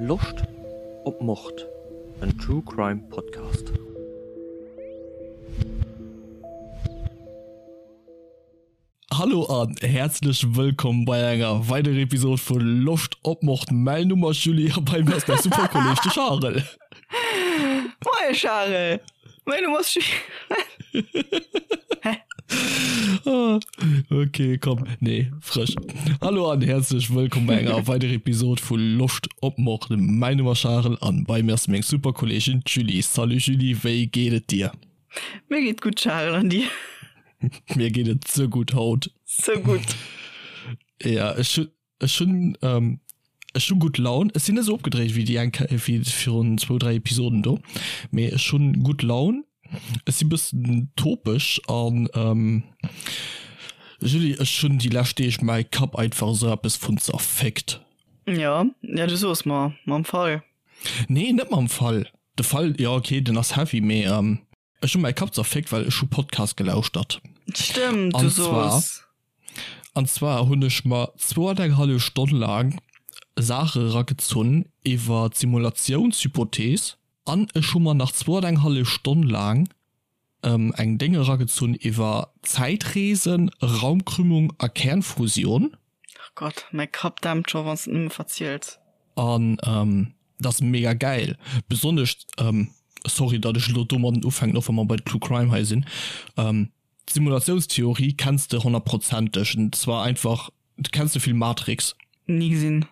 Loscht op Mord? En True Crime Podcast. Hallo an häerzlech wëllkomm bei enger weiderer Episode vu Loscht op Mord. Mäin Numm ass Julie a bei mir ass mäi super Kolleg de Charel. Moie Charel, mäin Numm ass Julie. Hä? Ah, okay, komm, nee, frësch. Hallo an häerzlech wëllkomm bei enger weiderer Episode vu Loscht op Mord. Mäin Numm ass Charel an bei mir ass meng super Kolleegin d'Julie. Salut Julie, wéi geet et dir? Mir geet gutt Charel, an dir? Mir geet et ze gutt haut. Ze gutt. Ja, ech hunn, ech hunn, ähm, ech hu gutt Laun. Ech sinn net esou opgedréit wéi déi eng Kéier, wéi virun zwou, dräi Episoden do, mee ech hunn gutt Laun. Ech si bëssen topeg an, ähm, Julie, ech hunn déi lescht Deeg mäi Kapp einfach esou eppes vun zerfickt. Ja, ja, du soos mer, mam Fall. Nee, net mam Fall. De Fall, jo okay, den ass heavy, mee, ähm, Ech hu mäi Kapp zerféckt, well ech hu Podcast gelauschtert. Stëmmt, du soos. An zwar hunn ech mer zwou an eng hallef Stonn laang Saache eragezunn iwwer d'Simulatiounshypothees an ech hu mer nach zwou an eng hallef Stonn laang eng Déng eragezunn iwwer Zäitreesen, Raumkrümmung a Kernfusion. Ach Gott, mäi Kapp dämpt scho wanns de et nëmme verziels. An dat ass mega gäil, besonnesch, sorry datt ech elo domadden ufänken, och wa mer bei True Crime hei sinn, d'Simulatiounstheorie kenns de honnertprozenteg, und zwar einfach, du kenns de Film Matrix? Ni gesinn.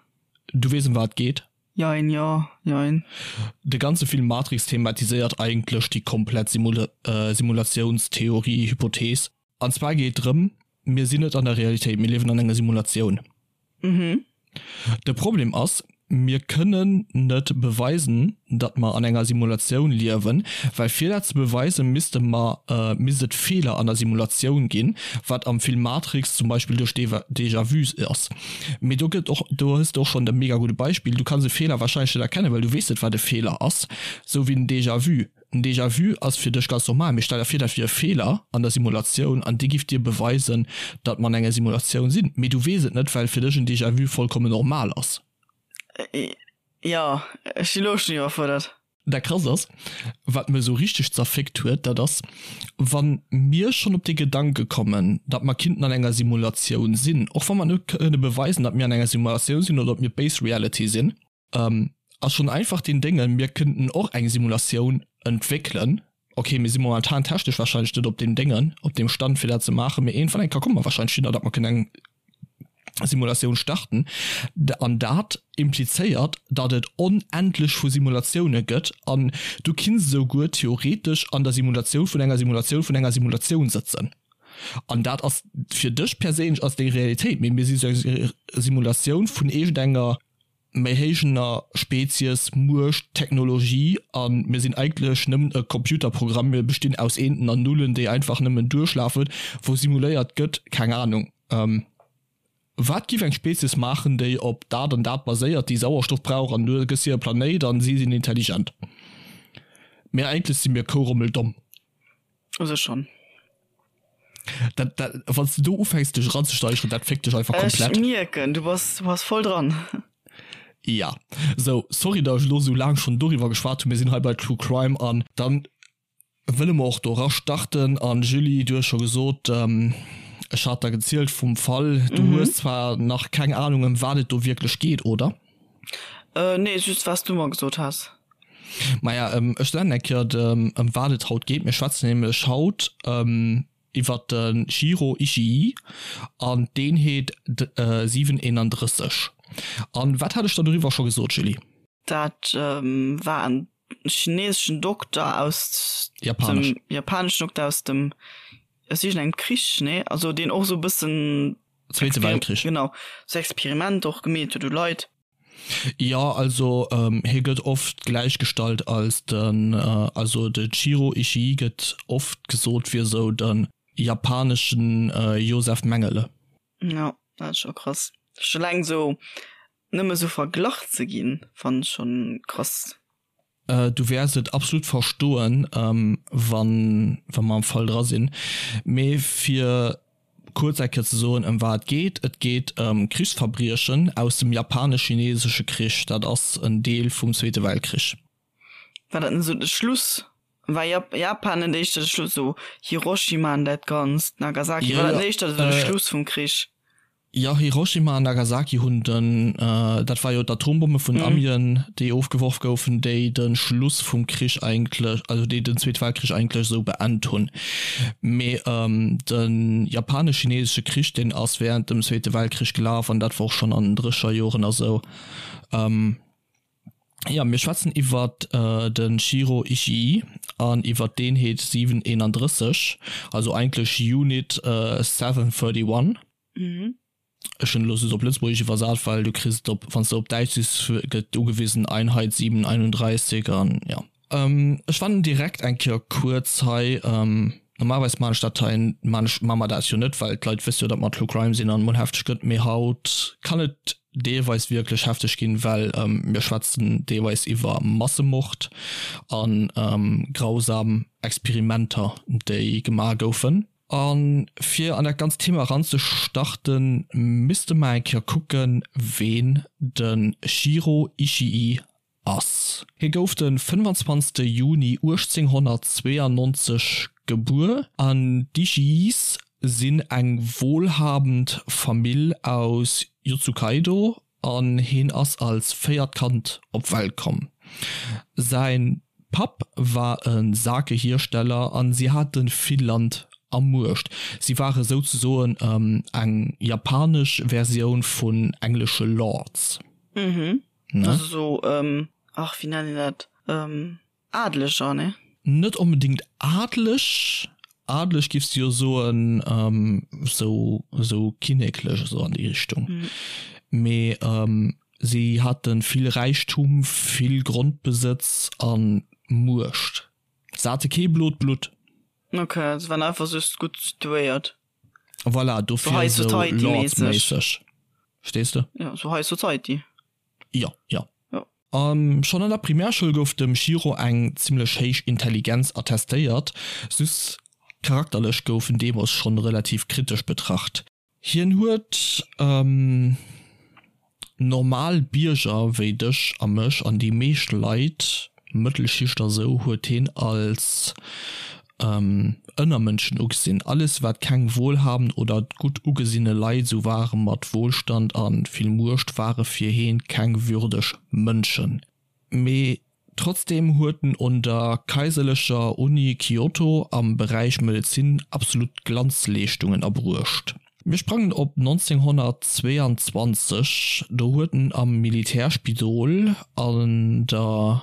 Du weess em wat et geet? Jein, jo, jein. De ganze Film Matrix thematiséiert eigentlech déi komplett Simulatiounstheorie, Hypothees. An zwar geet drëm, mir sinn net an der Realitéit, mir liewen an enger Simulatioun. De Problem ass, mir kënnen net beweisen, datt mer an enger Simulatioun liewen, well fir dat ze beweisen, misste mer, misst et Feeler an der Simulatioun ginn, wat am Film Matrix zum Beispill duerch Déjà-vus ass. Mee do gëtt och, do hues de och schonn e mega gudde Beispill, du kanns e Feeler warscheinlech net erkennen, well du weess net, wat e Feeler ass, sou wéi den Déjà-vu. En Déjà-vu ass fir dech ganz normal, mee stell der vir, dat wier e Feeler an der Simulatioun an dee giff dir beweisen, datt mer an enger Simulatioun sinn. Mee du weess et net, well fir dech en Déjà-vu vollkommen normal ass. Jo, ech si lo schonn iwwerfuerdert. Dat Krasst ass, wat mech esou richteg zerfickt huet, dat ass, wa mir schonn op dee Gedanke kommen, datt mer kinnten an enger Simulatioun sinn, och wa mer net kënne beweisen, datt mir an enger Simulatioun sinn oder datt mir d'Base Reality sinn, Ass schon einfach deen Déngen, mir kënnten och eng Simulatioun entwéckelen. Ok, mir si momentan technesch wahrscheinlech net op deem Déngen, op deem Stand fir dat ze maachen, mee iergendwann eng Kéier komme mer wahrscheinlech hinner, datt mer kënnen eng Simulatioun starten. An dat implizéiert, datt et onendlech vu Simulatioune gëtt an du kinns esou guer theoretesch an der Simulatioun vun enger Simulatioun vun enger Simulatioun sëtzen. An dat ass fir dech perséinlech ass deng Realitéit, mee mir si sou eng Simulatioun vun iergendenger méi héijener Spezies, Muecht, Technologie a mir sinn eigentlech nëmmen e Computerprogramm, mir bestinn aus Eenten an Nullen, déi einfach nëmmen duerchlafen, wou simuléiert gëtt, keng Ahnung, wat giff eng Spezies maachen, déi op dat an dat baséiert, déi Sauerstoff brauch an du gëss hir e Planéit an si sinn intelligent. Mee eigentlech si mir kourommeldomm. U sech schonn. Dat, dat, wann s du do ufänks dech eranzesteigeren, dat fickt dech einfach komplett. Ech mierken, du bass, du bass voll dran. Ja, sou, sorry datt ech elo sou laang schonn doriwwer geschwat hunn. Mir sinn hei bei True Crime an dann wëlle mer och do era starten. An Julie, du hues scho gesot, ech hat der gezielt vum Fall, du hues zwar nach keng Ahnung ëm wat et do wierklech geet, oder? Nee, just wat s du mer gesot has. Maja, ech soen eng Kéier, ëm wat et haut geet. Mir schwätzen nämlech haut iwwer de Shiro Ishii an d'Eenheet 731. An wat hat ech der doriwwer scho gesot, Julie? Dat war en chineseschen Dokter aus dem, japaneschen Dokter aus dem, aus iergendengem Krich, nee? Also deen och esou e bëssen. Zweete Weltkrich. Genau, sou Experimenter och gemeet huet u Leit. Jo, also hie gëtt oft gläichgestallt als den, also de Jiro Ishii gëtt oft gesot wier sou de japaneschen Josef Mengele. Jo, dat ass scho krass. Scho eleng sou nëmme sou verglach ze ginn, fannen ech schonn krass. Du wäers et absolut verstoen, wann wa mer am Fall dra sinn. Mee fir. kuerz eng Kéier ze soen, ëm wat et geet, Et geet ëm Krichsverbriechen aus dem Japanesch-Chinesesche Krich. Dat ass en Deel vum Zweete Weltkrich. War dat net esou de Schluss? War Japan net éischter de Schluss, esou Hiroshima an dat Ganzt, Nagasaki, war dat net éischter esou de Schluss vum Krich? Jo, Hiroshima an Nagasaki hunn den, dat war jo d'Atombomme vun Amien, déi ofgeworf goufen, déi de Schluss vum Krich eigentlech, also déi den Zweete Weltkrich eigentlech esou beend hunn. Mee de japanesch-chinesesche Krich, deen ass während dem Zweete Weltkrich gelaf an dat war och schonn an den Drécherjoren a sou. Jo, mir schwätzen iwwert de Shiro Ishii an iwwert d'Eenheet 731, also eigentlech Unit 731. Ech hunn elo just op Lëtzebuergesch iwwersat, well du kriss et op, wann s de op Däitsch sichs, gëtt ugewisen Einheit 731 an jo. Ech fannen direkt eng Kéier kuerz hei, normalerweis maan ech dat hei, maan ech, maa mer dat jo net, well d'Leit wësse jo, datt mer True Crime sinn an mol hefteg gëtt, mee haut kann et deelweis wierklech hefteg ginn, well mir schwätzen deelweis iwwer Massemord an grausam Experimenter, déi gemaach goufen. A fir an dat ganzt Thema eranzestarten, misste mer eng Kéier kucken, ween de Shiro Ishii ass. Hie gouf de 25. Juni 1892 gebuer an d'Ishiis sinn eng wohlhabend Famill aus Yotsukaido an hien ass als véiert Kand op d'Welt komm. Säin Papp war e Sake-Hiersteller an si hate vill Land a Muecht. Si ware souzesoen eng japanesch Versioun vun englesche Lords. Mhm. Ne? Also so, ähm, ach, wéi nennen een dat? Ähm, Adleger, ne? Net onbedingt adeleg, adeleg giffs de jo soen, ähm, sou, sou kinneklech, esou an déi Richtung. Mhm. Mee, ähm, si hate vill Räichtum, vill Grondbesëtz a Muecht. Se hate kee blot Blutt. Ok, se waren einfach just gutt situéiert. Voilà, dofir High sou Society mäisseg. Lords-méisseg. Verstees de? Ja, sou High Society. Jo, jo. Jo. A schonn an der Primärschoul gouf dem Shiro eng zimmlech héich Intelligenz attestéiert, just charakterlech gouf en deemools schonn relativ kritesch betracht. Hien huet normal Bierger wéi dech a mech an déi meescht Leit, Mëttelschicht a sou, huet hien als Ënnermënschen ugesinn. Alles wat keng wohlhabend oder gutt ugesinne Leit sou ware mat Wohlstand a vill Muecht ware fir heen keng würdeg Mënschen. Mee trotzdeem huet en un der Kaiserlecher Uni Kyoto am Beräich Medezin absolut Glanzleeschtungen erbruecht. Mir sprangen op 1922, do huet en am Militärspidol an der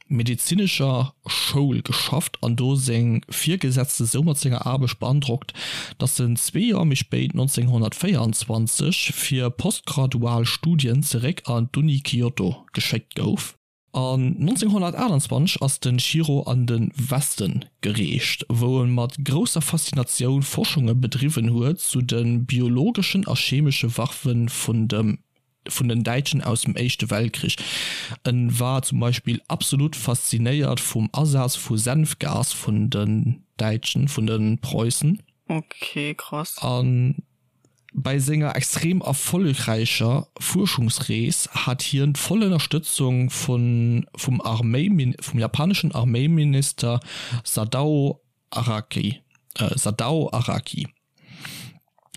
medezinescher Schoul geschafft an do seng Virgesetzte sou mat senger Aarbecht beandrockt, datt en zwee Joer méi spéit, 1924, fir postgradual Studien zeréck an d'Uni Kyoto geschéckt gouf. An 1928 ass de Shiro an de Weste gereecht, wou e mat grousser Faszinatioun Forschunge bedriwwen huet zu de biologeschen a chemesche Waffe vun dem vun den Däitschen aus dem Éischte Weltkrich. En war zum Beispill absolut faszinéiert vum Asaz vu Senfgas vun den Däitschen, vun de Preussen. Ok, krass. A bei senger extrem erfollegräicher Fuerschungsrees hat hien d'voll Ënnerstëtzung vun vum Arméi vum japaneschen Arméiminister Sadao Araki, Sadao Araki.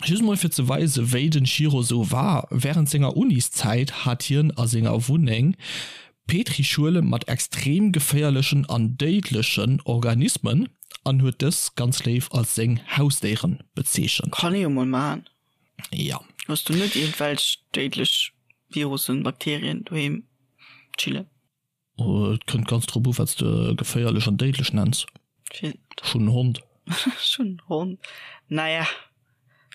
Just mol fir ze weisen, wéi den Shiro sou war, Während senger Uniszäit hat hien a senger Wunneng Petrischuele mat extrem geféierlechen an déidlechen Organismen an huet dës ganz léif als seng Hausdéieren bezeechent. Kann ee jo mol maachen. Jo. Hues du net iergendwelch déidlech Virussen, Bakterien doheem chillen? Et kënnt ganz drop u wat s de geféierlech an déidlech nenns. Ech hunn en Hond. Ech hunn en Hond. Naja,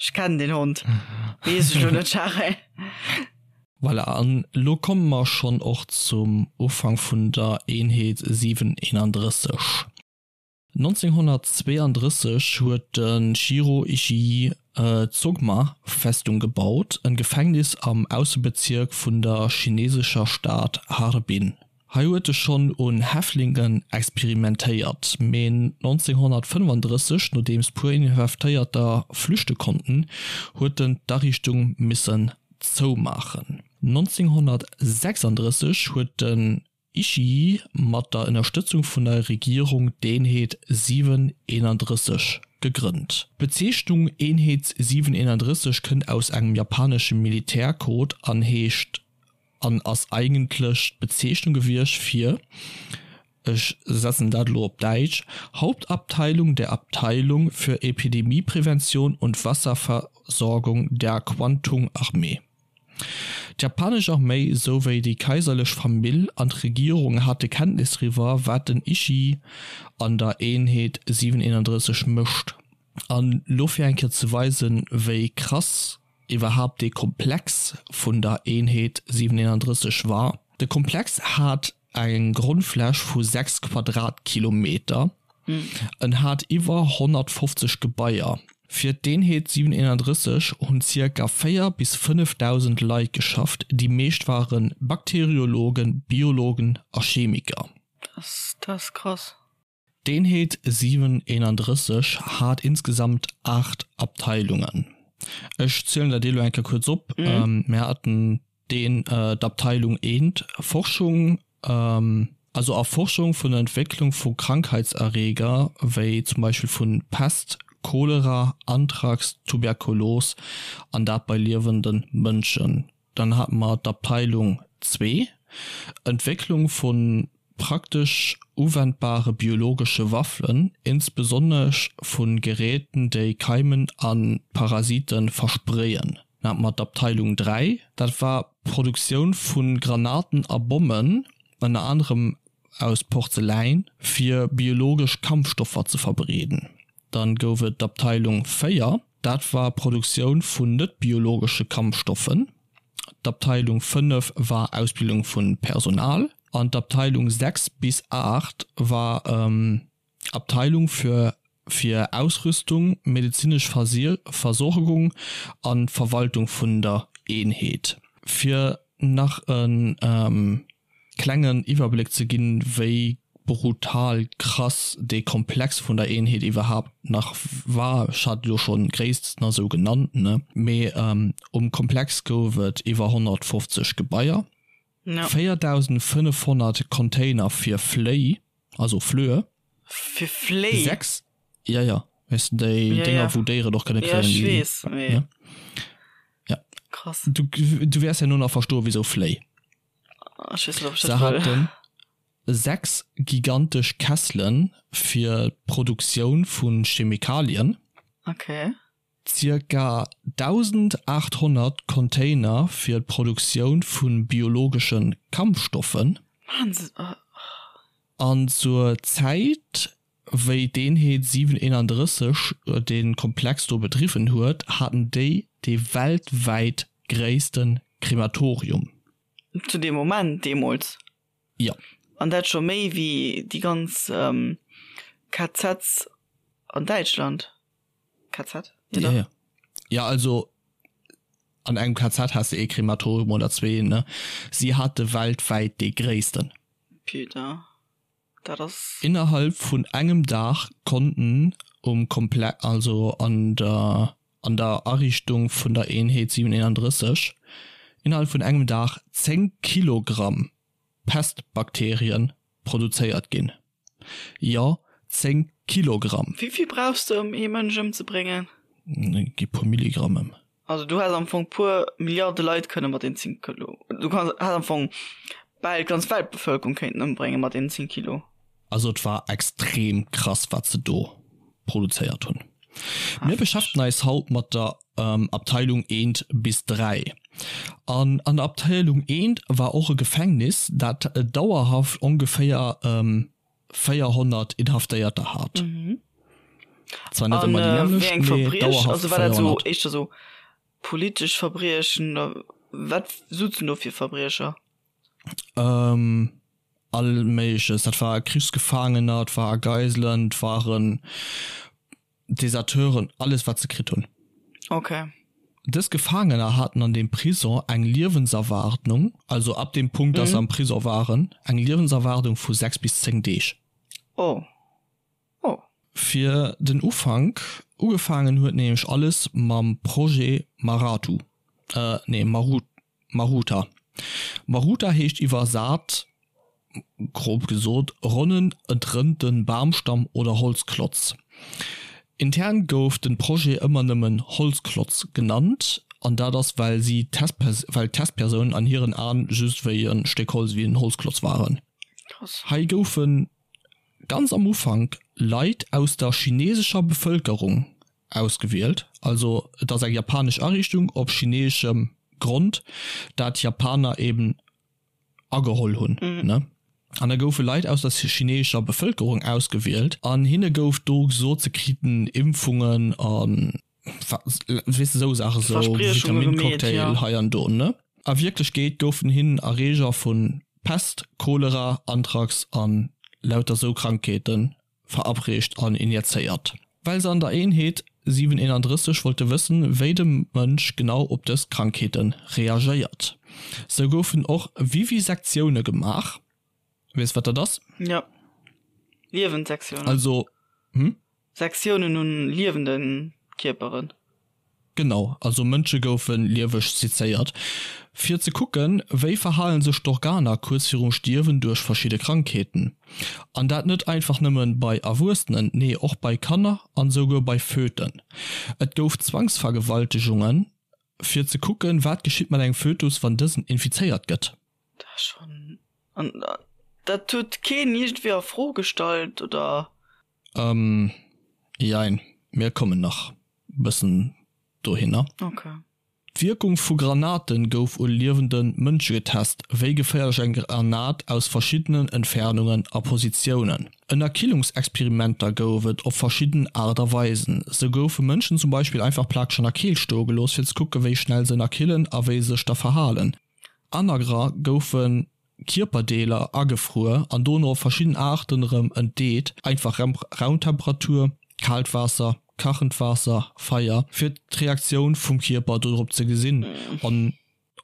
ech kennen deen Hond. Weess ech lo net, Charel. Voilà, an elo komme mer schonn och zum Ufank vun der Eenheet 731. 1932 huet de Shiro Ishii d'Sogma-Festung gebaut, en Gefängnis am Aussebezierk vun der chinesescher Stad Harbin. Hei huet e schonn un Häftlingen experimentéiert, mee 1935, nodeems puer Inhaftéierter flüchte konnten, huet en d'Ariichtung missen zoumaachen. 1936 huet den Ishii mat der Ënnerstëtzung vun der Regierung d'Eenheet 731 gegrënnt. D'Bezeechnung Eenheet 731 kënnt aus engem japanesche Militärcode an heescht an ass eigentlech d'Bezeechnung gewiescht fir, ech setzen dat elo op Däitsch, Hauptabteilung der Abteilung für Epidemieprävention und Wasserversorgung der Kwantung-Armee. D'japanesch Arméi souwéi déi kaiserlech Famill an d'Regierung hate Kenntnis driwwer, wat den Ishii an der Eenheet 731 mécht. An lo fir eng Kéier ze weisen, wéi krass iwwerhaapt dee Komplex vun der Eenheet 731 war, De Komplex hat eng Grondfläch vu 6 Quadratkilometer, en hat iwwer 150 Gebaier. Fir d'Eenheet 731 hunn zirka 4 bis 5.000 Leit geschafft, déi meescht ware Bakteriologen, Biologen a Chemiker. Dat ass krass. D'Eenheet 731 hat insgesamt 8 Abteilungen. Ech zielen der déi elo eng Kéier kuerz op. Mir haten deen d'Abteilung eent, Forschung, also Erforschung vun der Entwécklung vu Krankheitserreger, wéi zum Beispill vu Pest, Cholera, Anthrax, Tuberkulos, an dat bei liewende Mënschen. Dann hate mer d'Abteilung zwee, Entwécklung vu praktesch uwendbare biologesche Waffen, insbesonnesch vu Geräten, déi Keimen a Parasite verspreeën. Dann hate mer d'Abteilung 3, dat war d'Produktioun vu Granaten a Bommen, ënner anerem aus Porzeläin, fir biologesch Kampfstoffer ze verbreeden. Dann gouf et d'Abteilung 4, dat war Produktioun vun net-biologesche Kampfstoffen. D'Abteilung 5 war Ausbildung vu Personal an d'Abteilung 6 bis 8 war Abteilung für fir Ausrüstung, medezinesch Versorgung an Verwaltung vun der Eenheet. Fir nach e klengen Iwwerbléck ze ginn, wéi brutal krass dee Komplex vun der Eenheet iwwerhaapt nach war, ech hat et elo schonn gréissten a sou genannt, ne, mee um Komplex gouf et iwwer 150 Gebaier, 4.500 Container fir Fléi, also Flöhe, Fir Fléi? 6, jo jo, weess de, déi Dénger wou Déieren och kënne kréien, déi, jo ech weess, mee ja. Krass. Du, du wäers herno nach verstoen, wisou Fléi. Se haten 6 gigantesch Kesselen fir d'Produktioun vu Chemikalien. Okay. Zirka 1.800 Container fir d'Produktioun vu biologesche Kampfstoffen. An zur Zäit, wéi d'Eenheet 731 dee Komplex do bedriwwen huet, haten déi dee weltwäit gréisste Krematorium. Zu deem Moment deemools? Jo. An dat scho méi wéi déi ganz KZs an Däitschland? KZ? Jo, dach. Jo, also an engem KZ has de ee Krematorium oder zwee, ne? Si hate weltwäit dee gréissten. Putain, dat ass. Innerhalb vun engem Dag konnten um Komple-, also an der an der Ariichtung vun der Eenheet 731 innerhalb vun engem Dag 10 Kilogramm Pestbakterien produzéiert ginn. Jo, 10 Kilogramm! Wéi vill brauchs de ëm ee Mënsch ëmzebréngen? Gi puer Milligramm ëm. Also du häss am Fong puer Milliarde Leit kënne mat den 10 Kilo, du kanns, häss am Fong bal d'ganz Weltbevëlkerung kéinten ëmbrénge mat den 10 Kilo. Also et war extrem krass wat se do produzéiert hunn. Mir beschäftegen eis haut mat der Abteilung eent bis 3. An an der Abteilung eent war och e Gefängnis dat dauerhaft ongeféier 400 Inhaftéierter hat. Zwar net ëmmer déi nämmlecht, mee dauerhaft 400. War dat sou éischter sou politesch Verbriechen oder wat souzen do fir Verbriecher? All Méigleches. Dat war Krichsgefaangener, et war Geiselen, et waren Deserteuren, alles wat se kritt hunn. Okay. Dës Gefaangener haten an deem Prison eng Liewenserwaardnung, also ab deem Punkt, dass se am Prison waren, eng Liewenserwaardung vu 6 bis 10 Deeg. Oh. Oh. Fir den Ufank, ugefaangen huet nämlech alles mam Projet Maratu, nee Maru, Maruta. Maruta heescht iwwersat, grob gesot, ronnen, entrënnte Bamstamm oder Holzklotz. Intern gouf den Projet ëmmer nëmmen Holzklotz genannt, an dat ass well si well d'Testpersounen an hiren Aen just wéi e Stéck Holz, wéi en Holzklotz waren. Hei goufen ganz am Ufank Leit aus der chinesescher Bevëlkerung ausgewielt, also et ass eng japanesch Ariichtung op chineeschem Grond, dat Japaner eben ageholl hunn, ne? An da goufe Leit aus der chineescher Bevëlkerung ausgewielt an hinne gouf do gesot, se kriten Impfungen a weess de sou Saache, sou Vitamincocktail hei an do, ne? A Wierklechkeet goufen hinnen Erreeger vu Pest, Cholera, Anthrax an lauter sou Krankheete verabreecht an injezéiert, well se an der Eenheet 731 wollte wëssen, wéi de Mënsch genau op dës Krankheete reagéiert. Sou goufen och Vivisektioune gemaach. Weess wat dat ass? Jo, liewend Sektiounen. Also, hm? Sektiounen un liewende Kierperen. Genau, also Mënsche goufe lieweg sezéiert, fir ze kucken, wéi verhalen sech d'Organer kuerz virum Stierwen duerch verschidde Krankheeten. An dat net einfach nëmme bei Erwuessenen, nee och bei Kanner an souguer bei Föten. Et gouf Zwangsvergewaltegungen, fir ze kucken, wat geschitt mat engem Fötus, wann dësen infizéiert gëtt. Dat ass schonn, an dat huet keen iergendwéi a Fro gestallt, oder? Ähm, jein, mir kommen nach bëssen dohinner. Okay. D'Wierkung vu Granaten gouf u liewende Mënsche getest, wéi geféierlech eng Granat aus verschiddenen Entfernungen a Positiounen. Ënnerkillungsexperimenter gouf et op verschidden Aart a Weisen. Sou goufe Mënschen zum Beispill einfach plakeg an der Keelt stoe gelooss, fir ze kucke wéi schnell se ënnerkillen a wéi se sech da verhalen. Anerer goufe Kierperdeeler agefruer an dono op verschidden Aarten erëm entdeet, einfach Raumtemperatur, kaalt Waasser, kachend Waasser, Feier, fir d'Reaktioun vum Kierper dodrop ze gesinn an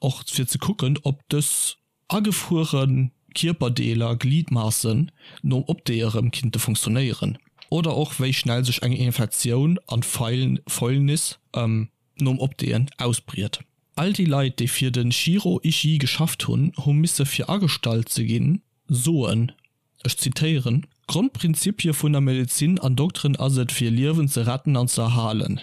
och fir ze kucken, ob dës agefruere Kierperdeeler, Gliedmassen, nom Opdeeë rëm kinnte funktionéieren oder och wéi schnell sech eng Infektioun an Fäulnis nom Opdeeën ausbriet. All déi Leit, déi fir de Shiro Ishii geschafft hunn, hu misse fir agestallt ze ginn, soen, ech zitéieren, D'Grondprinzipie vun der Medezin an Dokteren ass et fir Liewen ze retten an ze erhalen.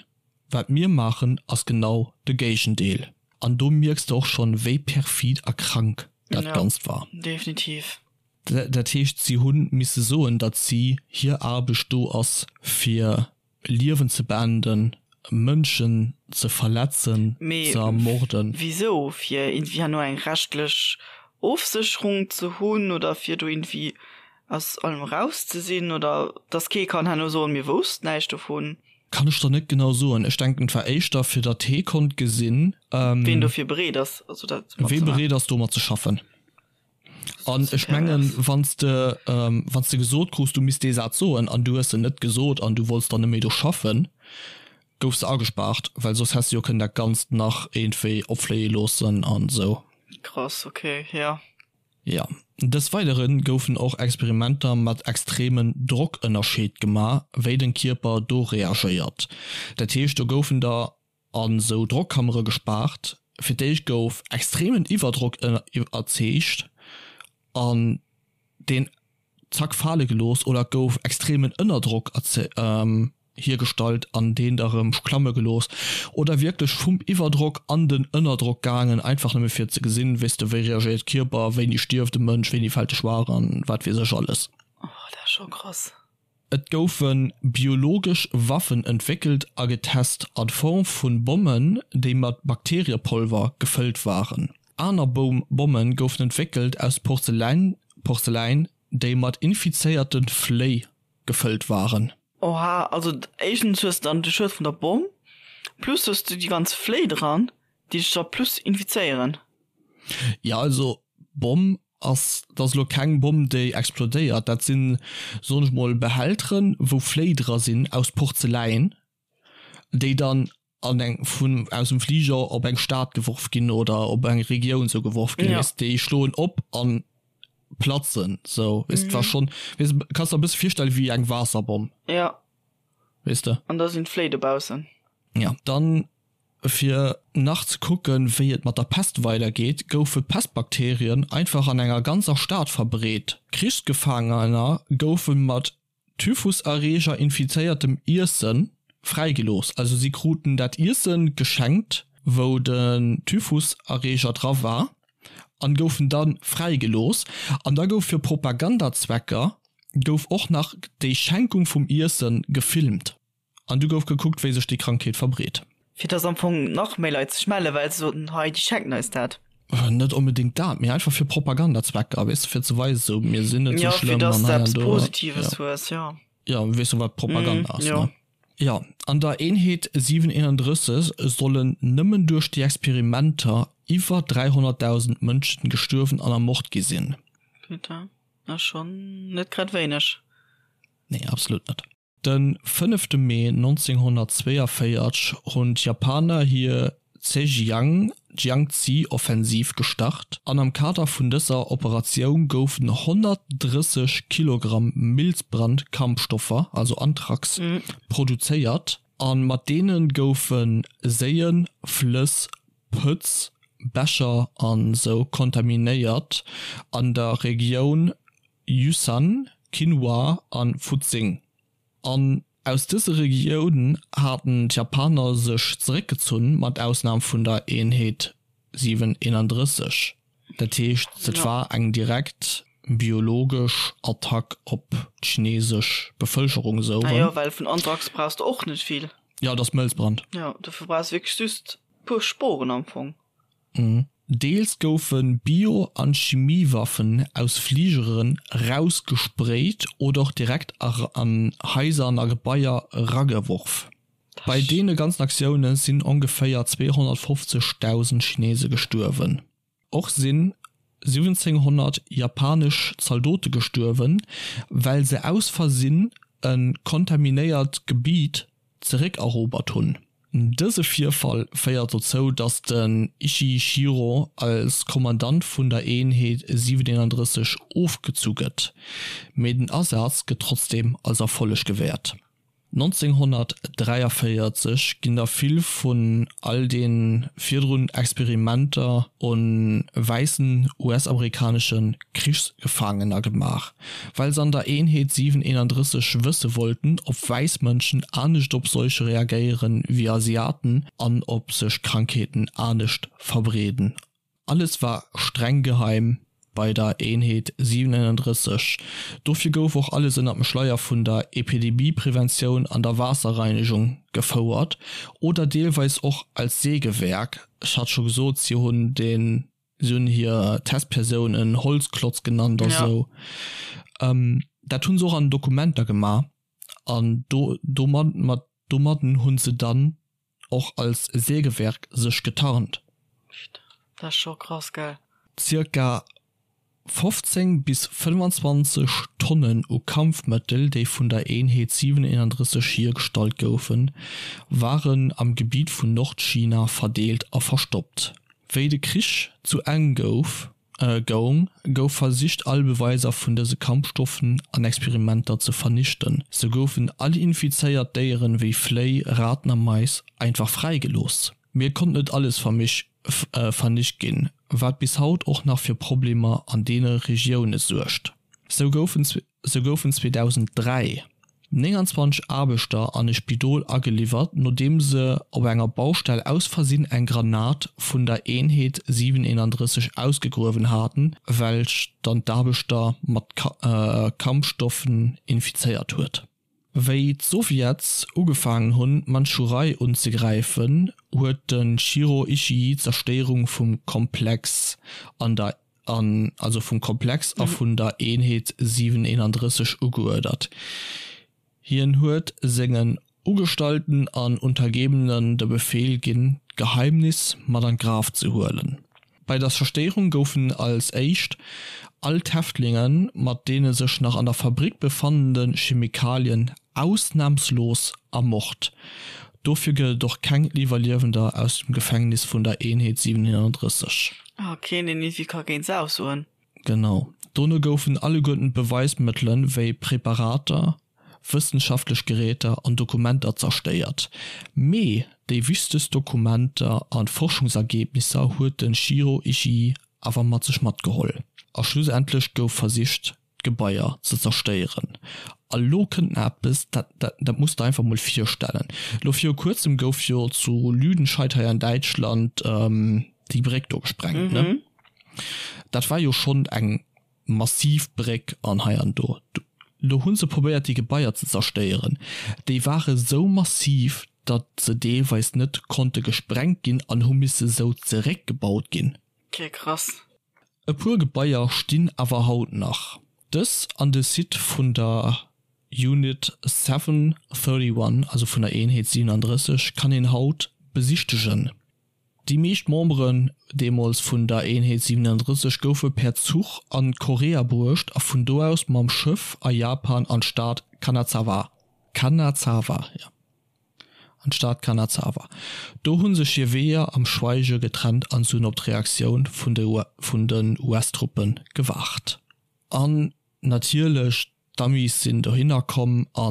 Wat mir maachen, ass genau de Géigendeel. An do mierks de och schonn, wéi perfid a krank dat Ganzt war. Definitiv. Dat heescht, si hu misse soen, datt si hir Aarbecht do ass fir Liewen ze beenden, Mënschen ze verletzen, ze ermorden. Mee wisou? Fir iergendwéi herno eng rechtlech Ofsécherung ze hunn oder fir do iergendwéi aus allem eraus ze sinn oder dass kee kann herno soen, mir woussten näischt dovun? Kann ech der net genau soen. Ech denken et war éischter fir datt hee konnt gesinn. Ween dofir bereet ass, also dat mat ze maachen. Wee bereet ass domat ze schaffen. An ech mengen, wann s de, wann s de gesot krus, du misst dee Saz soen an du hues en net gesot an du wollts dann net méi do schaffen, goufs de agespaart, well soss häss de jo kënnen dat Ganzt nach iergendwéi opfléie loossen an esou. Krass, ok, jo. Jo. Des Weidere goufen och Experimenter mat extremen Drockënnerscheed gemaach, wéi den Kierper do reagéiert. Dat heescht, do goufen der an sou Drockkammere gespaart. Fir d'éischt gouf extremen Iwwerdrock erzeegt an deen zack fale gelooss oder et gouf extremen Ënnerdrock hiergestallt an deen da rëm klamme gelooss oder wierklech vum Iwwerdrock an den Ënnerdrock gaangen, einfach nëmme fir ze gesinn, weess de, wéi reagéiert d'Kierper, wéini stierft e Mënsch, wéini fält e schwaach an wat weess ech alles. Oh, dat ass scho krass. Et goufe biologesch Waffen entwéckelt a getest a Form vu Bommen, déi mat Bakteriepolver gefëllt waren. Aner Bomme goufen entwéckelt aus Porzeläin, déi mat infizéierte Fléi gefëllt waren. Oha, also éischtens hues de dann de Schued vun der Bomm, plus hues du déi ganz Fléi dran, déi dech da plus infizéieren. Jo, also Bomm ass, dat ass elo keng Bomm déi explodéiert, dat sinn, soen ech mol, Behälteren wou Fléi dra sinn aus Porzeläin, déi dann. An eng vun aus dem Fliger op eng Stad geworf ginn oder op eng Regioun sou geworf ginn, weess de, déi schloen op an platzen sou, weess de, war schonn, weess de, kanns der e bësse virstelle wéi eng Waasserbomm. Ja. Weess de. An da sinn d'Fléi dobaussen. Ja, dann fir nach ze kucken, wéi et mat der Pest weidergeet, goufe Pestbakterien einfach an enger ganzer Stad verbreet. Krichsgefaangener goufe mat Typhuserreeger infizéiertem Iessen fräigelooss. Also si kruten dat Iessen geschenkt, wou den Typhuserreeger dra war, an goufen da fräigelooss. An da gouf fir Propagandazwecker gouf och nach déi Schenkung vum Iessen gefilmt. An du gouf gekuckt, wéi sech déi Krankheet verbreet. Fir dass am Fong nach méi Leit sech mellen, well se soten, hei, déi schenken eis dat. Net onbedéngt dat, mee einfach fir Propagandazwecker, weess de, fir ze weisen, sou, mir sinn net sou schlëmm. Jo, fir dass de eppes Positives hues, jo. Jo, weess de, wat Propaganda ass, ne? Jo, an der Eenheet 731 sollen nëmmen duerch déi Experimenter iwwer 300.000 Mënschen gestuerwen an ermort gi sinn. Putain, ass schonn net grad wéineg. Nee, absolut net. De fënnefte Mee 1942 hunn d'Japaner hir Zhejiang-Jiangxi-Offensiv gestart an am Kader vun dëser Operatioun goufen 130 Kilogramm Milzbrand-Kampfstoffer, also Anthrax, produzéiert a mat deene goufe Séien, Flëss, Pëtz, Bächer an sou kontaminéiert an der Regioun Yushan, Qinhua an Fuxing. An aus dëse Regiounen haten d'Japaner sech zeréckgezunn, mat Ausnam vun der Eenheet 731. Dat heescht, et war eng direkt biologesch Attack op d'chinesesch Bevëlkerung esou erëm. Ah jo, well vun Anthrax brauchs de och net vill. Jo, et ass Mëlzbrand. Jo, dofir brauchs de wierklech just e puer Sporen am Fong. Deels goufe Bio an Chimiewaffen aus Fligeren rausgesprayt oder och direkt an Haiser an a Gebaier rageworf. Bei deene ganzen Aktioune sinn ongeféier 250.000 Chinese gestuerwen. Och sinn 1700 japanesch Zaldote gestuerwen, well se aus Versinn e kontaminéiert Gebiet zeréckerobert hunn. Dëse Virfall féiert dozou, datt den Ishii Shiro als Kommandant vun der Eenheet 731 ofgezu gëtt, mee den Asaz gëtt trotzdeem als Erfolleg gewäert. 1943 ginn der vill vun all de virdrun Experimenter un wäissen US-amerikanesche Krichsgefaangener gemaach, well se an der Eenheet 731 wësse wollten, ob wäiss Mënschen anescht op Seuche reagéieren wéi Asiaten an ob sech Krankheeten anescht verbreeden. Alles war streng geheim bei der Eenheet 731, dofir gouf och alles ënner dem Schleier vun der Epidemiepreventioun an der Waasserreinegung gefouert oder deelweis och als Sägewerk, ech hat scho gesot, si hunn den Si hunn hir Testpersoun en Holzklotz genannt a sou. Dat hu se och an den Dokumenter gemaach an do domat mat domadden hu se dann och als Sägewerk sech getarnt. Dat ass scho krass, gell? Zirka 15 bis 25 Tonnen u Kampfmëttel, déi vun der Eenheet 731 hiergestallt goufen, waren am Gebitt vun Nordchina verdeelt a verstoppt. Wéi de Krich zu Enn gouf, goung, gouf versicht all Beweiser vun dëse Kampfstoffen an Experimenter ze vernichten. Sou goufen all infizéiert Déieren wéi Fléi, Raten a Mais einfach fräigelooss. Mee et konnt net alles vernicht ginn, wat bis haut och nach fir Problemer an deene Regioune suergt. Sou goufen Sou goufen 2003 29 Aarbechter an e Spidol ageliwwert, nodeem se op enger Baustell aus Versinn eng Granat vun der Eenheet 731 ausgegruewen haten, welch dann d'Aarbechter mat Kampfstoffen infizéiert huet. Wéi d'Sowjets ugefaangen hunn, d'Mandschurei unzegräifen, huet de Shiro Ishii d'Zerstéierung vum Komplex an der an also vum Komplex a vun der Eenheet 731 ugeuerdert. Hien huet sengen Ugestallten an Untergebenen de Befeel ginn, d'Geheimnis mat an d'Graf ze huelen. Bei der Zerstéierung goufen als éischt all d'Häftlinge mat deene sech nach an der Fabrick befannende Chemikalien ausnamslos ermort. Dofir gëtt et och keng Iwwerliewender aus dem Gefängnis vun der Eenheet 731. Ah, keen deen iergendwéi ka géint se aussoen. Genau. Dono goufen alleguerten d'Beweismëttelen, wéi Präparater, wëssenschaftlech Geräter an Dokumenter zerstéiert. Mee déi wichtegst Dokumenter an Forschungsergebnisser huet de Shiro Ishii awer mat sech matgeholl. A schlussendlech gouf versicht d'Gebaier ze zerstéieren. A lo kënnt nach eppes, dat dat muss der einfach mol virstellen. Lo viru kuerzem gouf jo zu Lüdenscheid hei an Däitschland déi Bréck do gesprengt, ne? Dat war jo schonn eng massiv Bréck an hei an do. Lo hu se probéiert déi Gebaier ze zerstéieren. Déi ware sou massiv, datt se deelweis net konnte gesprengt ginn an hu misse sou zeréckgebaut ginn. Ok, krass. E puer Gebaier stinn awer haut nach. Dës an de Site vun der Unit 731, also vun der Eenheet 37, kann een haut besichtegen. Déi meescht Memberen deemools vun der Eenheet 37 goufe per Zuch an Korea bruecht a vun do aus mam Schëff a Japan an d'Stad Kanazawa. Kanazawa, jo, an d'Stad Kanazawa. Do hu sech hir Weeër am Schweige getrennt an se hunn op d'Reaktioun vun den US-Truppe gewaart. An natierlech, d'Amis sinn dohinner komm a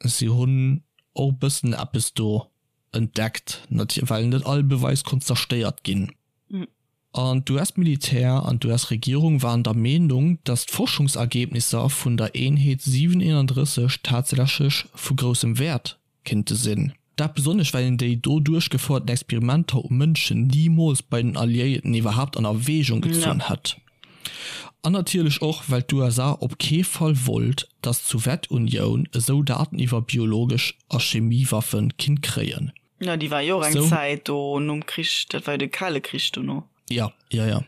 si hunn och e bëssen eppes do entdeckt, well net all Beweis konnt zerstéiert ginn. An d'US-Militär an d'US-Regierung waren der Meenung, datt d'Forschungsergebnisser vun der Eenheet 731 tatsächlech vu groussem Wäert kéinte sinn. Dat besonnesch well een déi do duerchgefouerten Experimenter u Mënschen nimools bei den Alliéierten iwwerhaapt an Erwägung gezunn hätt. An natierlech och well d'USA op kee Fall wollt, datt d'Sowjetunioun esou Daten iwwer biologesch a Chemiewaffe kinnt kréien. Jo, déi war jo och eng Zäit do nom Krich, dat war jo de Kale Krich dono. Jo, jo, jo.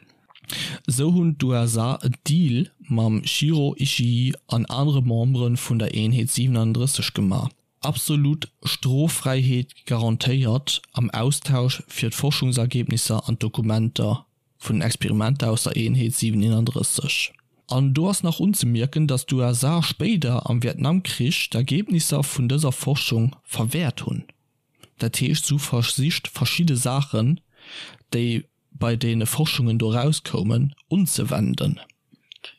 Esou hunn d'USA en Deal mam Shiro Ishii an anere Membere vun der Eenheet 37 gemaach, absolut Stroffräiheet garantéiert am Austausch fir d'Forschungsergebnisser an d'Dokumenter vun den Experimenter aus der Eenheet 731. An do ass nach unzemierken, datt d'USA spéider am Vietnamkrich d'Ergebnisser vun dëser Forschung verwäert hunn. Dat heescht, se hu versicht verschidde Saachen, déi bei deene Forschungen do erauskoumen, unzewenden.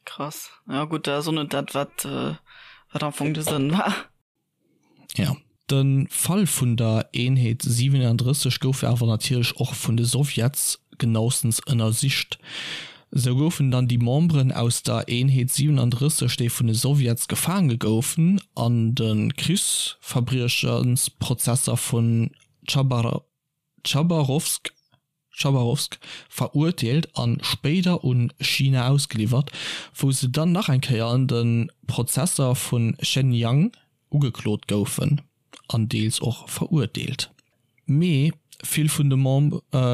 Krass. Jo gutt, dat ass och net dat, wat wat am Fong de Sënn war. Jo. De Fall vun der Eenheet 37 gouf awer natierlech och vun de Sowjets genaustens ënnersicht. Sou goufen dann déi Memberen aus der Eenheet 37, déi vun de Sowjets gefaange goufen, an de Krichsverbriechensprozesser vun Chabarowsk Chabarowsk verurteelt an spéider un China ausgeliwwert, wou se dann nach eng Kéier an de Prozesser vu Shenyang ugeklot goufen an deels och verurteelt. Mee vill vun de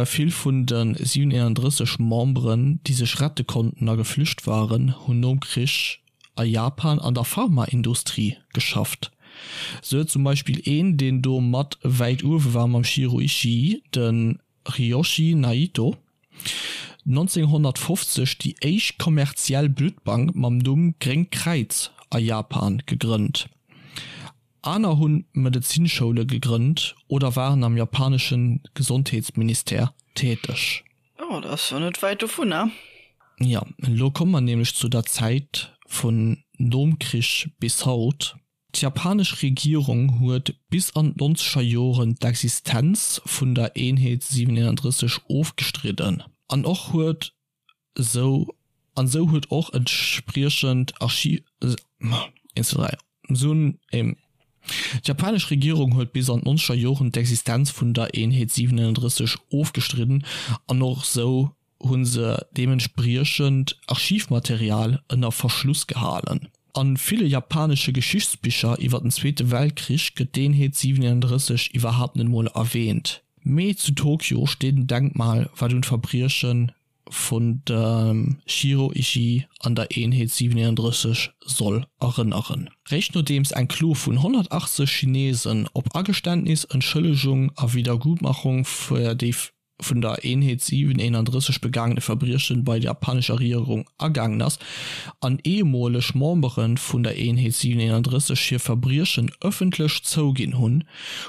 vill vun de 731 Memberen, déi sech rette konnten a geflücht waren, hunn nom Krich a Japan an der Pharmaindustrie geschafft. Sou huet zum Beispill een, deen do mat wäit uewe war mam Shiro Ishii, de Ryoshi Naito, 1950 déi éischt kommerziell Bluttbank mam Numm Gréngt Kräiz a Japan gegrënnt. Aner hu Medezinschoule gegrënnt oder waren am japanesche Gesondheetsministère täteg. Oh, dat ass jo net wäit dovunner. Jo, elo komme mer nämlech zu der Zäit vun nom Krich bis haut. D'japanesch Regierung huet bis an d'nonzeger Joren d'Existenz vun der Eenheet 731 ofgestridden an och huet sou an sou huet och entspriechend Archiv. D'japanesch Regierung huet bis an d'nonzeger Joren d'Existenz vun der Eenheet 731 ofgestridden an och sou hu se deementspriechend Archivmaterial ënner Verschluss gehalen. A ville japanesche Geschichtsbicher iwwer den Zweete Weltkrich gëtt d'Eenheet 731 iwwerhaapt net mol erwäänt. Mee zu Tokio steet en Denkmal, wat un d'Verbrieche vun dem Shiro Ishii an der Eenheet 731 soll erënneren. Réischt nodeems eng Klo vun 180 Chinesen op Ageständnis, Entschëllegung a Wiedergutmachung fir déi. vun der Eenheet 731 begaangene Verbriechen bei der japanescher Regierung agaangen ass an ehemoleg Membere vun der Eenheet 731 hir Verbriechen ëffentlech zouginn hunn,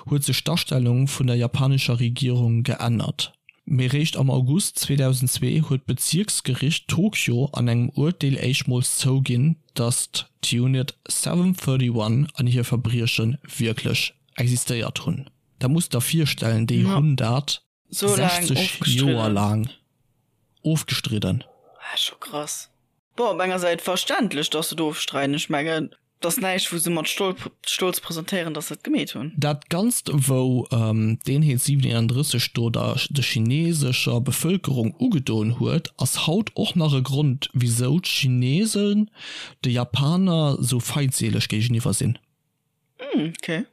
huet sech d'Astellung vun der japanescher Regierung geännert. Mee réischt am August 2002 huet d'Bezierksgericht Tokio an engem Urteel éischtmools zouginn, datt d'Unit 731 an hir Verbrieche wierklech existéiert hunn. Dat muss der virstellen, déi hunn dat 60 Joer laang ofgestridden. Ah, scho krass. Bon, op enger Säit verständlech, dass se et ofstreiden. Ech mengen, et ass näischt, wou se mat Stolz presentéieren, dass se et gemeet hunn. Dat Ganzt, wou d'Eenheet 731 do der de chinesescher Bevëlkerung ugedoen huet, ass haut och nach e Grond, wisou d'Chinesen de Japaner sou feindseeleg géigeniwwer sinn. Hm, okay.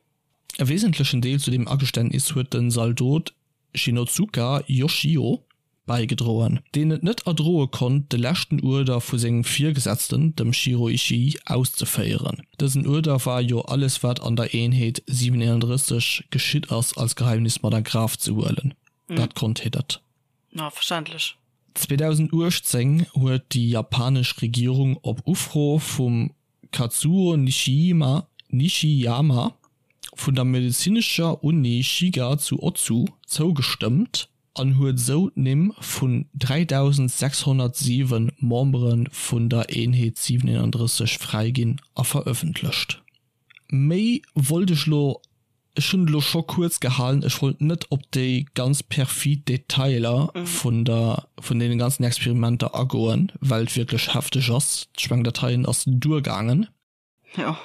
E wesentlechen Deel zu deem Ageständnis huet den Zaldot Shinozuka Yoshio bäigedroen, deen et net erdroe konnt, de leschten Uerder vu sengem Virgesetzten, dem Shiro Ishii, auszeféieren. Dësen Uerder war jo, alles wat an der Eenheet 731 geschitt ass, als Geheimnis mat a Graf ze huelen. Dat konnt hie net. Ja, verständlech. 2018 huet déi japanesch Regierung op Ufro vum Kazuo Nishiyama Nishiyama vun der medezinescher Uni Shiga zu Otsu zougestëmmt an huet esou d'Nimm vun 3.607 Membere vun der Eenheet 731 fräiginn a verëffentlecht. Méi wollt ech lo Ech hunn et elo scho kuerz gehalen, ech wollt net op déi ganz perfid Detailer vun der, vun deene ganzen Experimenter agoen, well et wierklech hefteg ass. Ech mengen, dat heien ass duergaangen. Jo.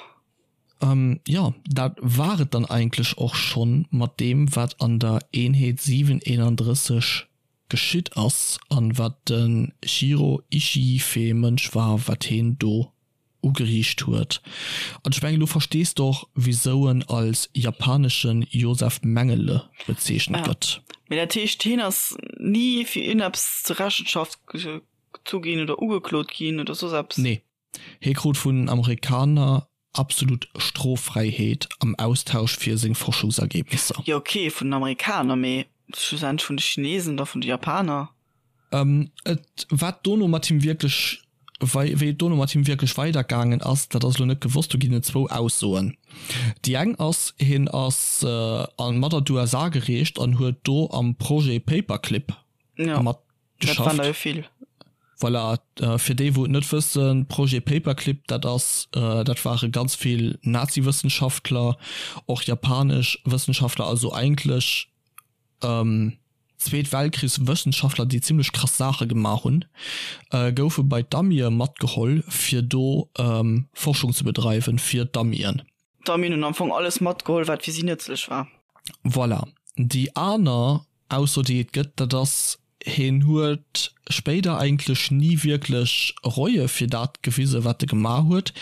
Jo, dat war et dann eigentlech och schonn mat deem, wat an der Eenheet 731 geschitt ass an wat de Shiro Ishii fir ee Mënsch war, wat heen do ugeriicht huet. An ech mengen, elo verstees de och, wisou en als japanesche Josef Mengele bezeechent gëtt. Mee dat heescht, hien ass ni fir iergendeppes zur Rechenschaft gezu ginn oder ugeklot ginn oder soss eppes? Nee. Hie krut vun den Amerikaner absolut Stroffräiheet am Austausch fir seng Forschungsergebnisser. Jo ok, vun den Amerikaner, mee schlussendlech vun de Chinesen oder vun de Japaner? Et, wat dono mat him wierklech, wei wéi et dono mat him wierklech weidergaangen ass, dat ass elo net gewosst. Do ginn et zwou Aussoen. Déi eng ass, hien ass an mat an d'USA gereecht an huet do am Projet Paperclip Ja, mat dat waren der jo vill. Voilà, fir déi wou et net wëssen, Projet Paperclip, dat ass, dat ware ganz vill Nazi-Wëssenschaftler, och japanesch Wëssenschaftler, also eigentlech Zweet Weltkrichs Wëssenschaftler déi zimlech krass Saache gemaach hunn, goufe bei d'Amie matgeholl fir do Forschung ze bedreiwen fir d'Amien. D'Amien hunn am Fong alles matgeholl wat fir si nëtzlech war. Voilà. Déi aner Ausso déi et gëtt, dat ass, hien huet spéider eigentlech ni wierklech Reue fir dat gewise wat e gemaach huet,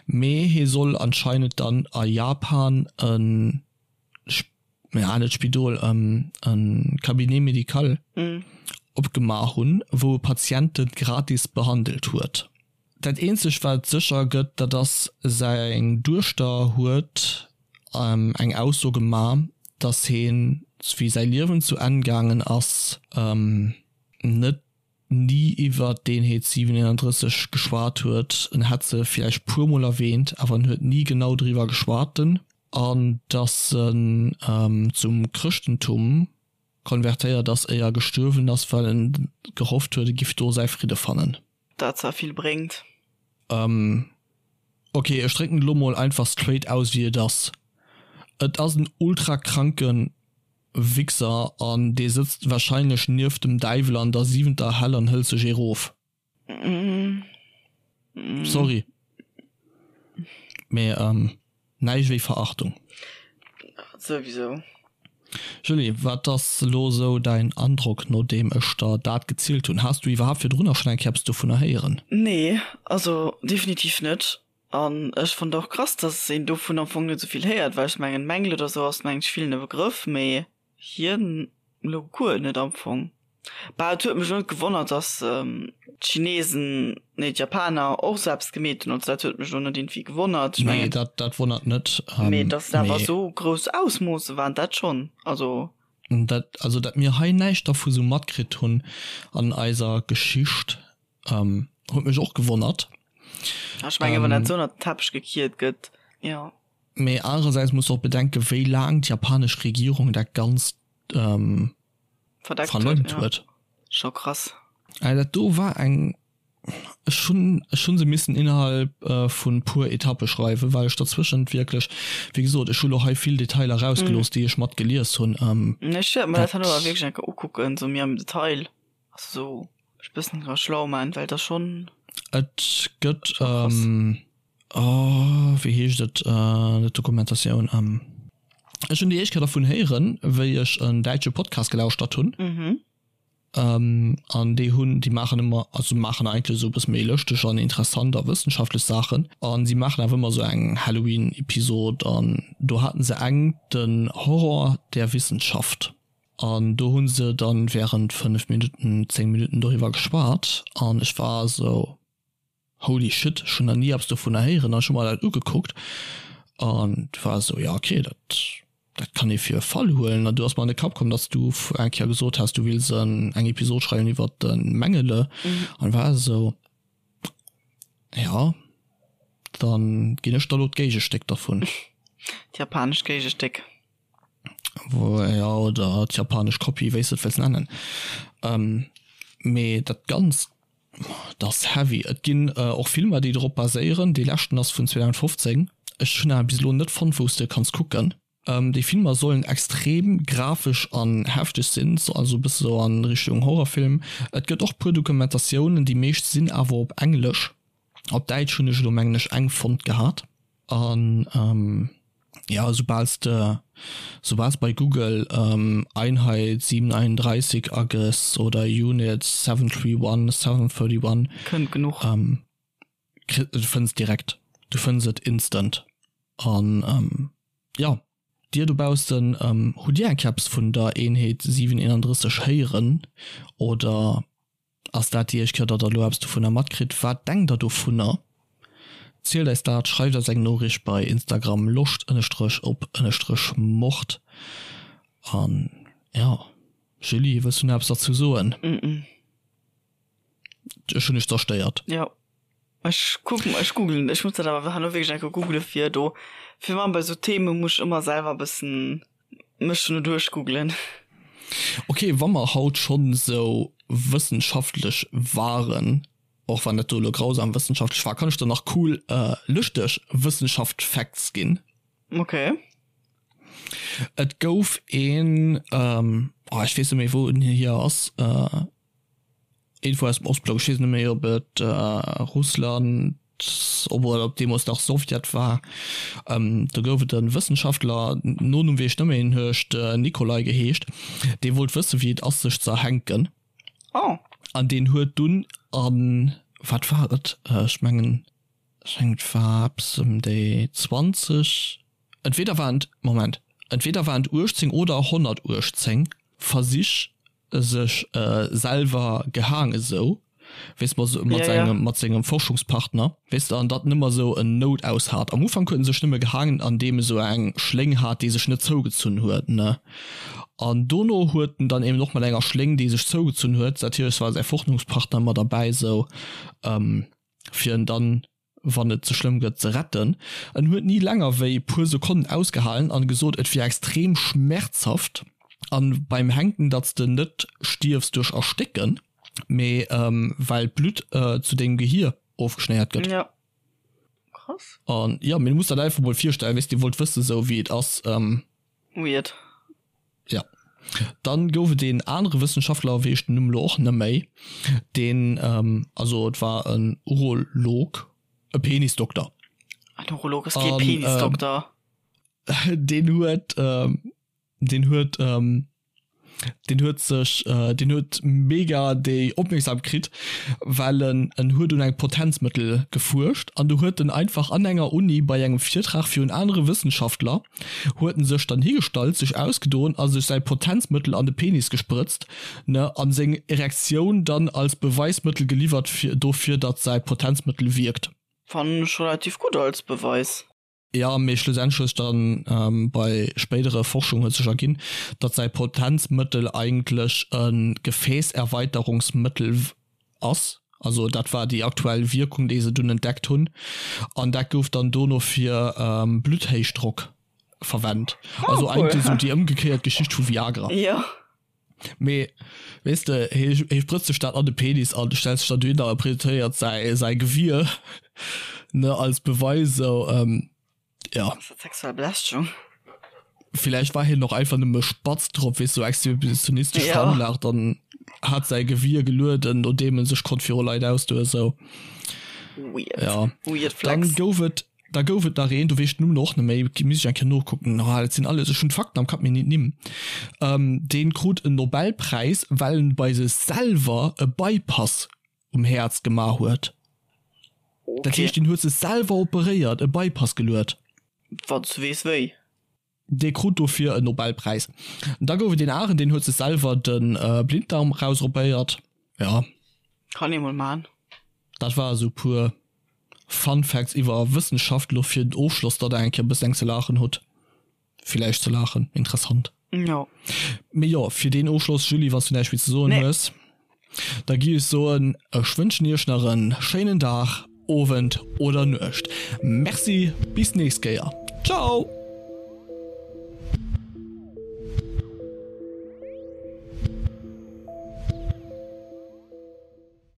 mee hie soll anscheinend dann a Japan e ja net Spidol, e Cabinet médical opgemaach hunn, wou e Patiente gratis behandelt huet. Dat eenzegt wat sécher gëtt, dat ass, seng Duechter huet eng Ausso gemaach, datt hien, wéi säi Liewen zu Enn gaangen ass, net ni iwwer d'Eenheet 731 geschwat huet. En hätt se villäicht puer mol erwähnt, awer en huet ni genau driwwer geschwat. An dass en zum Chrëschtentum konvertéiert ass, éier e gestuerwen ass, well en gehofft huet, e giff do säi Fridde fannen. Dat zwar vill bréngt. Ok, ech drécken et elo mol einfach straight aus wéi et ass, Et ass en ultra kranken Wichser an dee sëtzt wahrscheinlech nieft dem Däiwel an der siwenter Hell an hëlt sech ee rof. Sorry, mee näischt wéi Verachtung. Souwisou. Julie, wat ass elo sou däin Androck nodeem ech der dat gezielt hunn? Has du iwwerhaapt virdrunner schonn eng Kéier eppes dovunner héieren? Nee, also definitiv net. An ech fonnt och krass, dass een dovun am Fong net esou vill héiert, well ech mengen Mengele oder sou ass mengen ech villen e Begrëff, mee hien elo guer net am Fong. Bah, et huet mech elo net gewonnert, dass d'Chinesen, nee d'Japaner och sou eppes gemeet hunn, also dat huet mech elo net iergendwéi gewonnert. Ech mengen. Nee, dat dat wonnert net. Mee dass et awer esou grouss Ausmoosse waren, dat schonn, also. Dat, also dat mir hei näischt dervu sou matkritt hunn an eiser Geschicht, huet mech och gewonnert. Ech mengen, wann dat sou ënnert den Teppech gekiert gëtt, jo. Mee anerersäits muss de och bedenken, wéi laang d'japanesch Regierung dat Ganzt verdeckt huet, jo. Scho krass. Dat do war eng Ech hunn, ech hunn se missen innerhalb vun puer Etappe schreiwen, well ech derzwëschent wierklech, wéi gesot, ech hu lo hei vill Detailer rausgelooss, déi ech mat gelies hunn. Ech wäert mer dat herno awer wierklech eng Kéier ukucken, sou méi am Detail, also sou mech e bëssen dra schlau man, well et ass schonn. Et gëtt, oh, wéi heescht et, net Dokumentatioun, ech hunn déi éischt Kéier dervun héieren, wéi ech en däitsche Podcast gelauschtert hunn. An déi hunn, déi maachen ëmmer, also maachen eigentlech esou e bësse méi lëschteg an interessant a wëssenschaftlech Saachen. A si maachen awer ëmmer esou eng Halloween-Episod an do haten se eng, den Horror der Wissenschaft. An do hu se dann während 5 Minutten, 10 Minutten doriwwer geschwat an ech war esou, Holy shit, ech hunn nach ni eppes dovunner héieren an ech hu mer dat ugekuckt an war esou, jo ok, dat dat kann ee fir e Fall huelen. An du ass mer an de Kapp komm, datt s du eng Kéier gesot has, du wills eng Episod schreiwen iwwert de Mengele an war esou, jo, dann ginn ech der elo d'Géigestéck dervun. D'japanescht Géigestéck. Jo, oder d'japanesch Kopie, wéi s de et wëlls nennen. Mee dat Ganzt Dat ass heavy. Et ginn och Filmer déi drop baséieren. Dee leschten ass vun 2015. Ech hunn awer bis elo net fonnt wou s de kanns kucken. Déi Filmer sollen extrem grafesch an hefteg sinn, also e bësse sou an Richtung Horrorfilm. Et gëtt och puer Dokumentatiounen, déi meescht sinn awer op Englesch. Op Däitsch hunn ech elo mengen ech eng fonnt gehat. An jo, soubal s de, soubal s bei Google Einheit 731 agëss oder Unit 731, 731, Kënnt genuch. Kri, du fënns direkt, du fënns et instant. An jo, dir dobaussen, hutt dir eng Kéier eppes vun der Eenheet 731 héieren oder Ass dat déi éischt Kéier, datt der elo eppes dovunner matkritt? Wat denkt der dovunner? Zielt eis dat, schreift eis eng Noriicht bei Instagram loscht ënnestrech op ënnestrech mord. An jo, Julie, wëlls du nach eppes derzou soen? Ech hunn dech zerstéiert. Jo, ech kucken, ech googlen, ech muss dat awer herno wierklech eng Kéier googlen, fir do, fir wann bei esou Theme muss ech ëmmer selwer e bëssen mech no duerchgooglen. Ok, wa mer haut schonn esou wëssenschaftlech waren, och wann dat do elo grausam wëssenschaftlech war, kann ech der nach cool lëschteg Wëssenschaft-Facts ginn. Ok. Et gouf een, oh ech weess net méi wou en hier ass, Iergendwou aus dem Ostblock, ech weess net méi ob et Russland oder ob deemools nach Sowjet war, do gouf et e Wëssenschaftler, Nonumm weess ech net méi, en huet Nikolai geheescht, dee wollt wësse wéi et ass sech ze erhänken. Oh. An deen huet dunn an, wat war et, ech mengen, ech mengen et war eppes ëm déi 20, entweder waren et, Moment, entweder waren et 18 oder 118 Versich sech selwer gehaang esou weess mat mat sengem mat sengem Forschungspartner weess de an datt nëmmer esou en Noutaus hat. Am Ufank huet en sech nëmme gehaangen an deem esou eng Schléng hat déi sech net zougezunn huet ne an dono huet en dann eben och mat enger Schléng déi sech zougezunn huet natierlech war säi Forschungspartner mat derbäi esou fir en dann wann et ze schlëmm gëtt, ze retten. En huet ni länger wéi puer Sekonnen ausgehalen an gesot, et wier extrem schmerzhaft an beim Hänken, datt s de net stierfs duerch Erstécken, mee well d'Blutt zu dengem Gehier ofgeschnéiert gëtt. Ja. Krass. An jo, mee du muss der dat einfach mol virstellen, weess, dee wollt wëssen, sou wéi et ass. Weird. Ja. Dann gouf et een anere Wëssenschaftler, weess ech den Numm elo och net méi, deen, also et war en Urolog, e Penisdokter. En Urolog ass kee Penisdokter. Deen huet, deen huet, deen huet sech, deen huet mega déi Opmierksam kritt, well en en huet un engem Potenzmëttel gefuerscht an du huet en einfach an enger Uni bei engem Virtrag virun anere Wëssenschaftler huet en sech dann higestallt, sech ausgedoen a sech säi Potenzmëttel an de Penis gesprëtzt, ne, an seng Erektioun dann als Beweismëttel geliwwert fir dofir, datt säi Potenzmëttel wierkt. Fannen ech relativ gutt als Beweis. Jo, mee schlussendlech huet sech dann bei spéidere Forschung huet sech erginn, datt säi Potenzmëttel eigentlech e Gefäässerweiterungsmëttel ass. Also dat war déi aktuell Wierkung, déi se dunn entdeckt hunn. An dat gouf dann dono fir Blutthéichdrock verwennt. Also eigentlech esou déi ëmgekéiert Geschicht vu Viagra. Jo. Mee weess de, hie hie sprëtzt sech dat an de Penis an stellt sech dann dohinner a presentéiert säi säi Gewier, ne, als Beweis esou, jo. Ass dat sexuell Belästegung? Villäicht war hien och einfach nëmme spatz drop, weess, sou exhibitionistesch veranlagt an hat säi Gewier gelueden, nodeem en sech konnt viru Leit ausdoen, esou. Weird. Ja. Weird Flex. Dann gouf et Da gouf et nach een, do weess ech den Numm och net méi, misst ech eng Kéier nokucken, ah dat sinn alles, ech hunn d'Fakten am Kapp, mee nit d'Nimm, dee krut en Nobelpräis, well en bei sech selwer e Bypass um Häerz gemaach huet. Dat heescht, deen huet sech selwer operéiert, e Bypass geluet. Wann s du weess wéi. Dee krut dofir en Nobelpräis. Da gouf et een aneren, deen huet sech selwer de Blinddarm erausopéiert. Ja. Kann ee mol man. Dat war esou puer Fun Facts iwwer Wëssenschaft elo fir den Ofschloss, datt der eng Kéier e bëssen eng ze laachen hutt. Villäicht ze laachen, interessant. Jo. Mee jo, fir deen Ofschloss, Julie, wann s du näischt méi ze soen hues. Da gi ech soen, ech wënschen iech nach en schéinen Dag, Owend oder Nuecht. Merci, bis nächst Kéier. Ciao!